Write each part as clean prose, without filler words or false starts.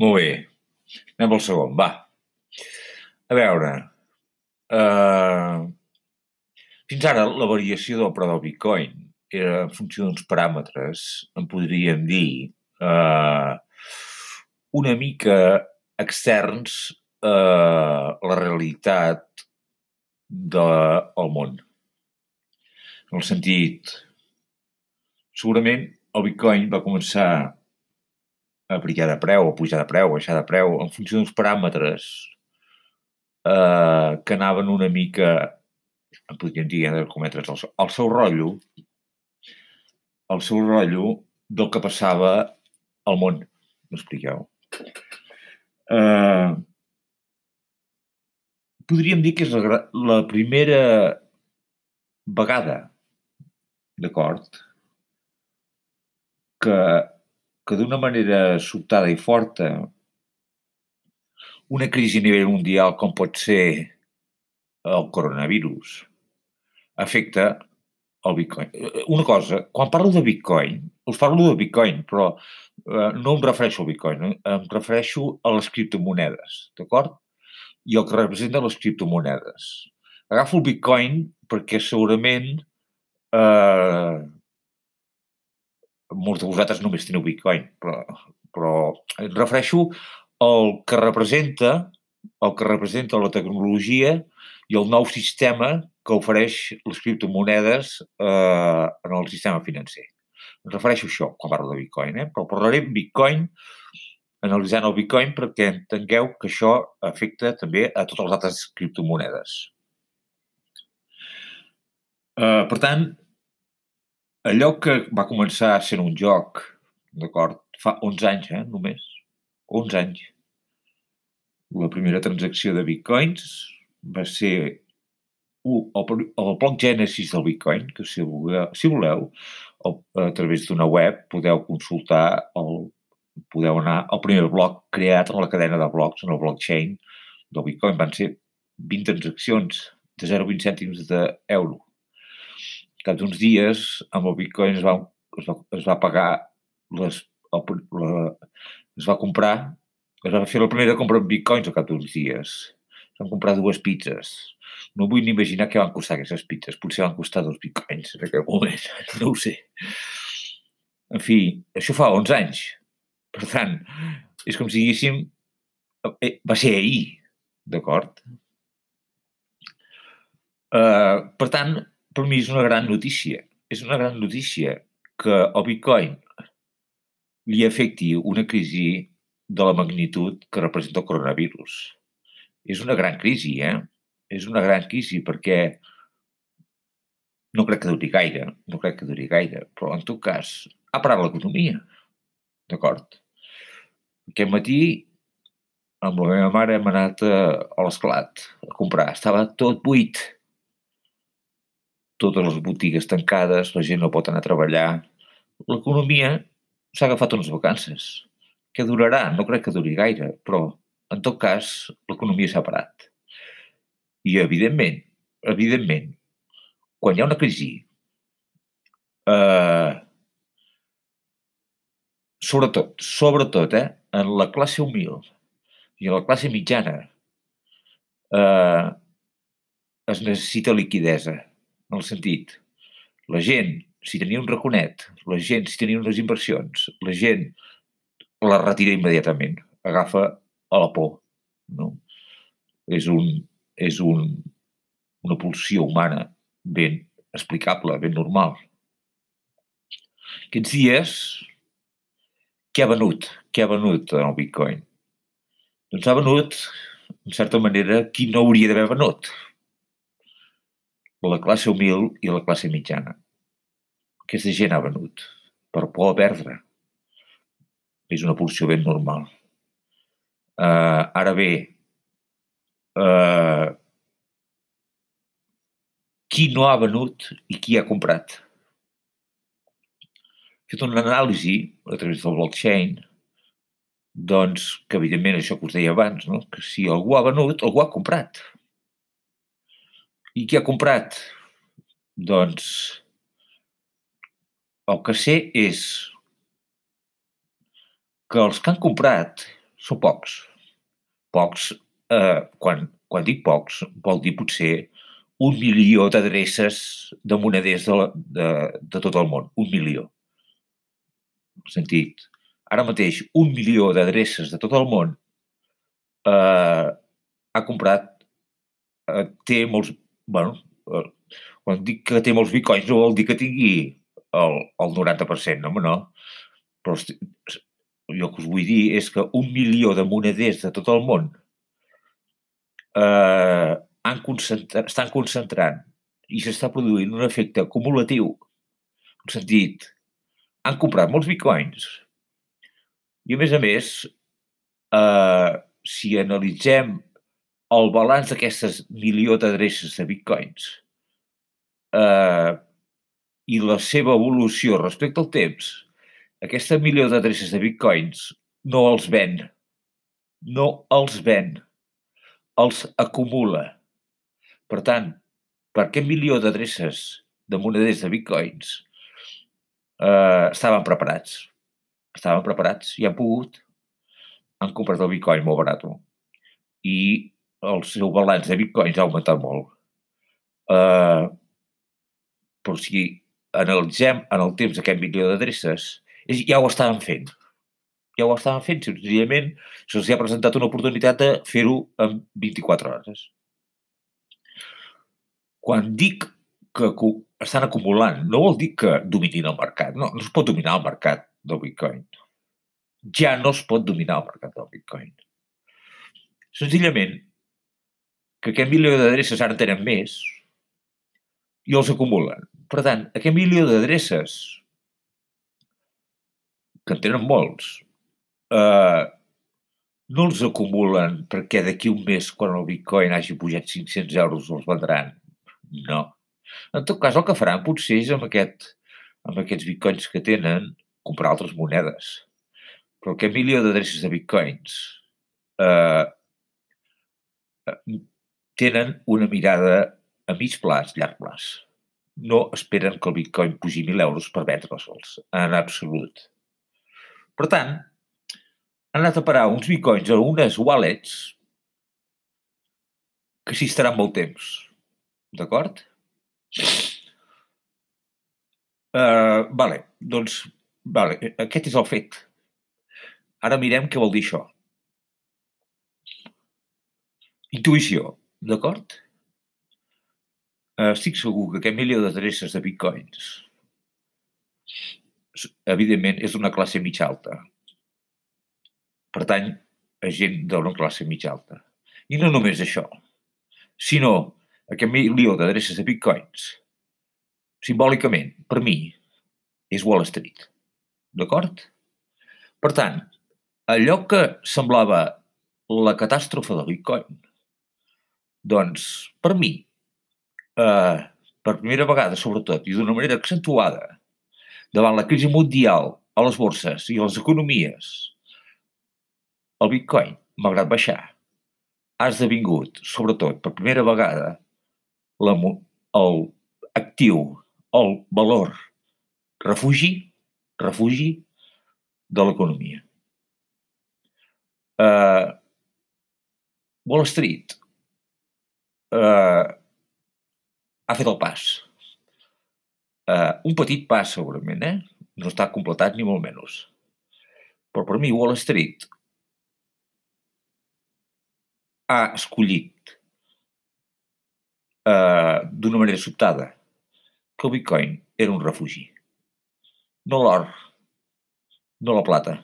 Molt bé, anem al segon, va. A veure, eh, fins ara la variació del preu del Bitcoin era en funció d'uns paràmetres, en podríem dir, eh, una mica externs a la realitat del món. En el sentit, segurament el Bitcoin va començar a brillar de preu, a pujar de preu, a baixar de preu, en funció d'uns paràmetres que anaven una mica, en podríem dir, de cometres el seu rotllo del que passava al món. M'expliqueu? Podríem dir que és la primera vegada, d'acord, que d'una manera sobtada i forta una crisi a nivell mundial com pot ser el coronavirus afecta el Bitcoin. Una cosa, quan parlo de Bitcoin, us parlo de Bitcoin, però no em refereixo al Bitcoin, em refereixo a les criptomonedes, d'acord? I el que representen les criptomonedes. Agafo el Bitcoin perquè segurament molts de vosaltres només teniu Bitcoin, però em refereixo al que representa la tecnologia i el nou sistema que ofereix les criptomonedes en el sistema financer. Em refereixo a això quan parlo de Bitcoin, però parlaré de Bitcoin, analitzant el Bitcoin perquè entengueu que això afecta també a totes les altres criptomonedes. Per tant, allò que va començar sent un joc, d'acord, fa 11 anys, només, 11 anys, la primera transacció de bitcoins va ser el bloc Genesis del Bitcoin, que si voleu, a través d'una web podeu consultar, podeu anar al primer bloc creat en la cadena de blocs, en el blockchain del Bitcoin. Van ser 20 transaccions de 0,20 cèntims d'euro. Cap d'uns dies, amb el Bitcoin es va pagar, es va fer la primera compra en Bitcoins al cap d'uns dies. Es van comprar 2 pizzas. No vull ni imaginar què van costar aquestes pizzas. Potser van costar 2 Bitcoins en aquell moment. No ho sé. En fi, això fa 11 anys. Per tant, és com si diguéssim, va ser ahir, d'acord? Per tant, per mi és una gran notícia. És una gran notícia que el Bitcoin li afecti una crisi de la magnitud que representa el coronavirus. És una gran crisi, És una gran crisi perquè no crec que duri gaire, però en tot cas ha parat l'economia, d'acord? Aquest matí amb la meva mare hem anat a l'Esclat a comprar. Estava tot buit. Totes les botigues tancades, la gent no pot anar a treballar. L'economia s'ha agafat unes vacances. Què durarà? No crec que duri gaire, però en tot cas l'economia s'ha parat. I evidentment, quan hi ha una crisi, sobretot, en la classe humil i en la classe mitjana, es necessita liquiditat, en el sentit, la gent, si tenia un raconet, la gent, si tenia unes inversions, la gent la retira immediatament, agafa a la por, no? És una pulsió humana ben explicable, ben normal. Aquests dies, què ha venut? Què ha venut en el Bitcoin? Doncs ha venut, en certa manera, qui no hauria d'haver venut. La classe humil i la classe mitjana. Aquesta gent ha venut per por a perdre. És una pulsió ben normal. Ara bé, qui no ha venut i qui ha comprat? He fet una anàlisi a través del blockchain, doncs, que evidentment això que us deia abans, no? Que si algú ha venut, algú ha comprat. I qui ha comprat? Doncs el que sé és que els que han comprat són pocs. Pocs, quan dic pocs, vol dir potser 1 milió d'adreces de moneders de tot el món. 1 milió. Sentit, ara mateix 1 milió d'adreces de tot el món ha comprat, té molts... Bueno, quan dic que té molts bitcoins no vol dir que tingui el 90%, no, home, no. Però jo que us vull dir és que 1 milió de moneders de tot el món estan concentrant i s'està produint un efecte acumulatiu. En sentit, han comprat molts bitcoins i, a més, si analitzem el balanç d'aquestes milió d'adreces de bitcoins i la seva evolució respecte al temps, aquesta milió d'adreces de bitcoins no els ven, els acumula. Per tant, per aquest milió d'adreces de moneders de bitcoins estaven preparats i han comprat el bitcoin molt barat i el seu balanç de bitcoins ha augmentat molt. Però si analitzem en el temps aquest milió d'adreces, ja ho estaven fent. Senzillament se'ls ha presentat una oportunitat de fer-ho en 24 hores. Quan dic que estan acumulant, no vol dir que dominin el mercat. No es pot dominar el mercat del bitcoin. Ja no es pot dominar el mercat del bitcoin. Senzillament que aquest milió d'adreces ara en tenen més i els acumulen. Per tant, aquest milió d'adreces, que en tenen molts, no els acumulen perquè d'aquí un mes, quan el bitcoin hagi pujat 500 euros, els vendran. No. En tot cas, el que faran potser és amb aquests bitcoins que tenen, comprar altres monedes. Però aquest milió d'adreces de bitcoins tenen una mirada a mig plaç, llarg plaç. No esperen que el bitcoin pugi 1.000 euros per vendre'ls, en absolut. Per tant, han anat a parar uns bitcoins a unes wallets que s'hi estaran molt temps. D'acord? Doncs, aquest és el fet. Ara mirem què vol dir això. Intuïció, d'acord? Estic segur que aquest milió d'adreces de bitcoins, evidentment, és d'una classe mitja alta. Pertany a gent d'una classe mitja alta. I no només això, sinó aquest milió d'adreces de bitcoins, simbòlicament, per mi, és Wall Street. D'acord? Per tant, allò que semblava la catàstrofe del bitcoin, doncs, per mi, per primera vegada, sobretot, i d'una manera accentuada, davant la crisi mundial a les borses i a les economies, el bitcoin, malgrat baixar, ha esdevingut, sobretot, per primera vegada, l'actiu, el valor refugi de l'economia. Wall Street ha fet el pas. Un petit pas, segurament, no està completat ni molt menys. Però per mi Wall Street ha escollit d'una manera sobtada que el bitcoin era un refugi. No l'or, no la plata.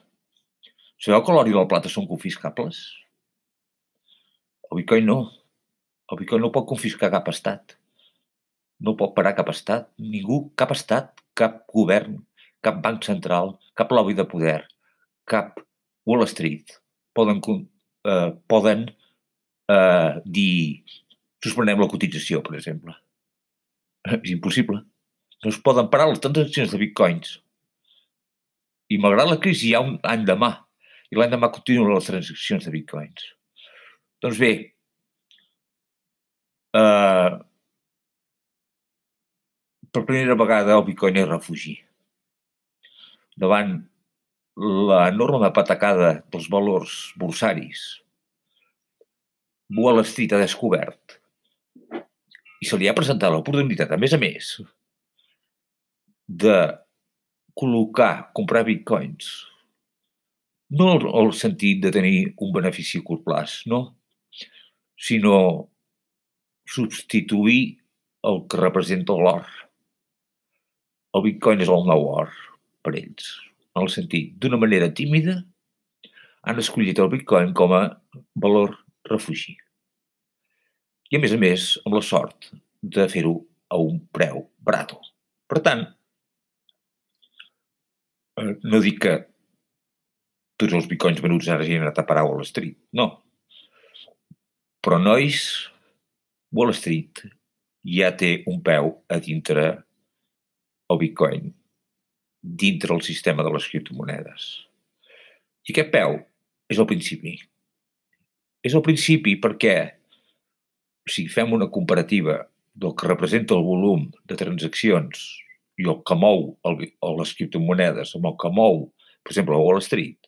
Sabeu que l'or i la plata són confiscables? El bitcoin no. El bitcoin no pot confiscar cap estat. No pot parar cap estat. Ningú, cap estat, cap govern, cap banc central, cap lobby de poder, cap Wall Street poden dir suspenem la cotització, per exemple. És impossible. No es poden parar les transaccions de bitcoins. I malgrat la crisi hi ha un any demà. I l'any demà continuen les transaccions de bitcoins. Doncs bé, per primera vegada el bitcoin és refugi. Davant l'enorme patacada dels valors borsaris. Wall Street ha descobert i se li ha presentat l'oportunitat, a més, de comprar bitcoins. No el sentit de tenir un benefici a curt plaç, no, sinó substituir el que representa l'or. El bitcoin és el nou or per ells, en el sentit, d'una manera tímida, han escollit el bitcoin com a valor refugi. I a més, amb la sort de fer-ho a un preu barat. Per tant, no dic que tots els bitcoins venuts ara hagin anat a parar a Wall Street, no. Però, nois, Wall Street ja té un peu a dintre el bitcoin, dintre el sistema de les criptomonedes. I aquest peu és el principi. És el principi perquè, si fem una comparativa del que representa el volum de transaccions i el que mou les criptomonedes amb el que mou, per exemple, a Wall Street,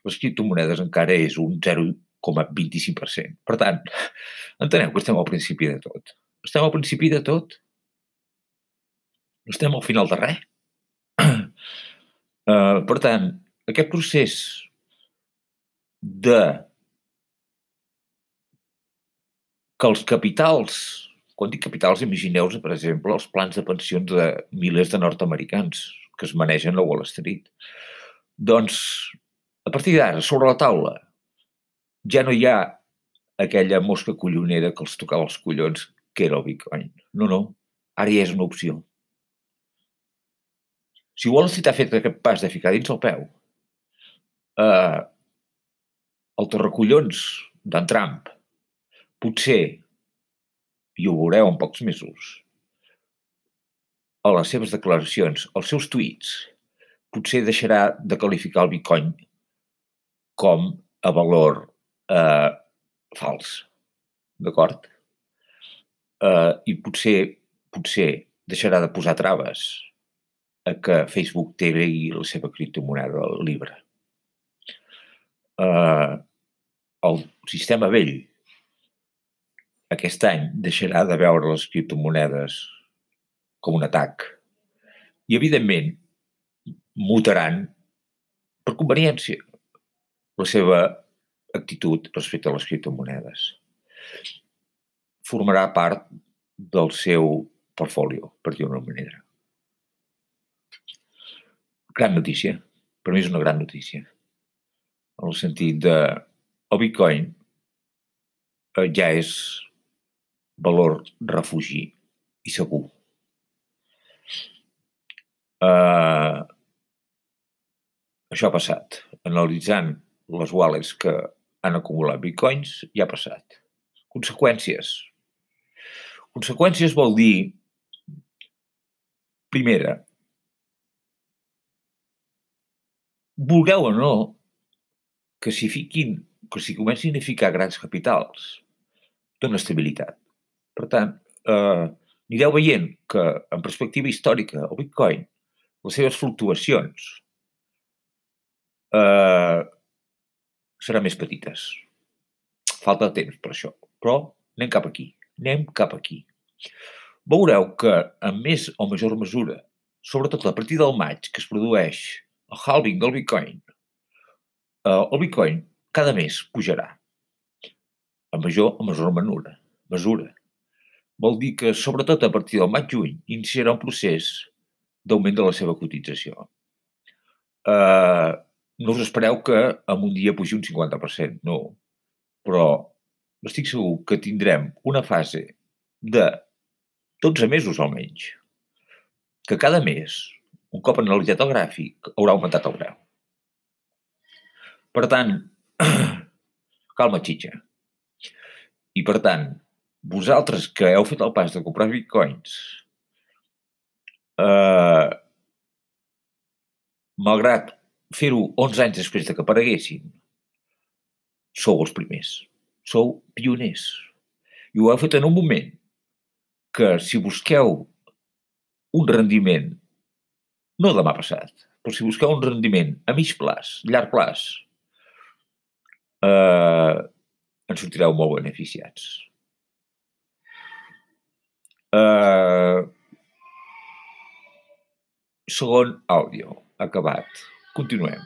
les criptomonedes encara és un 0,25%. Per tant, enteneu que estem al principi de tot. Estem al principi de tot? Estem al final de res? Per tant, aquest procés de que els capitals, quan dic capitals, imagineu-vos, per exemple, els plans de pensions de milers de nord-americans que es manegen a Wall Street. Doncs, a partir d'ara, sobre la taula, ja no hi ha aquella mosca collonera que els tocava els collons, que era el bitcoin. No, ara ja és una opció. Si Wall Street ha fet aquest pas de ficar dins el peu, el torracollons d'en Trump, potser, i ho veureu en pocs mesos, a les seves declaracions, als seus tuits, potser deixarà de qualificar el bitcoin com a valor fals, d'acord? I potser deixarà de posar traves a que Facebook tegui la seva criptomoneda libre. El sistema vell aquest any deixarà de veure les criptomonedes com un atac i, evidentment, mutaran per conveniència la seva actitud respecte a les criptomonedes. Formarà part del seu portfolio, per dir-ho d'una manera. Gran notícia. Per mi és una gran notícia. En el sentit de el bitcoin ja és valor refugi i segur. Això ha passat. Analitzant les wallets que han acumulat bitcoins, ja ha passat. Conseqüències. Conseqüències vol dir, primera, vulgueu o no, que si comencin a ficar grans capitals, dona estabilitat. Per tant, anireu veient que, en perspectiva històrica, el bitcoin, les seves fluctuacions seran més petites. Falta temps per això, però anem cap aquí. Veureu que, en més o major mesura, sobretot a partir del maig, que es produeix el halving del bitcoin, el bitcoin cada mes pujarà, a major o menor mesura. Vol dir que, sobretot a partir del maig-juny, iniciarà un procés d'augment de la seva cotització. No us espereu que en un dia pugi un 50%, no. Però estic segur que tindrem una fase de 12 mesos almenys, que cada mes, un cop analitzat el gràfic, haurà augmentat el preu. Per tant, calma, xitxa. I per tant, vosaltres que heu fet el pas de comprar bitcoins, malgrat fer-ho 11 anys després de que apareguessin, sou els primers, sou pioners. I ho heu fet en un moment que, si busqueu un rendiment, no demà passat, però si busqueu un rendiment a mig plaç, llarg plaç, en sortireu molt beneficiats. Segon àudio, acabat. Continuem.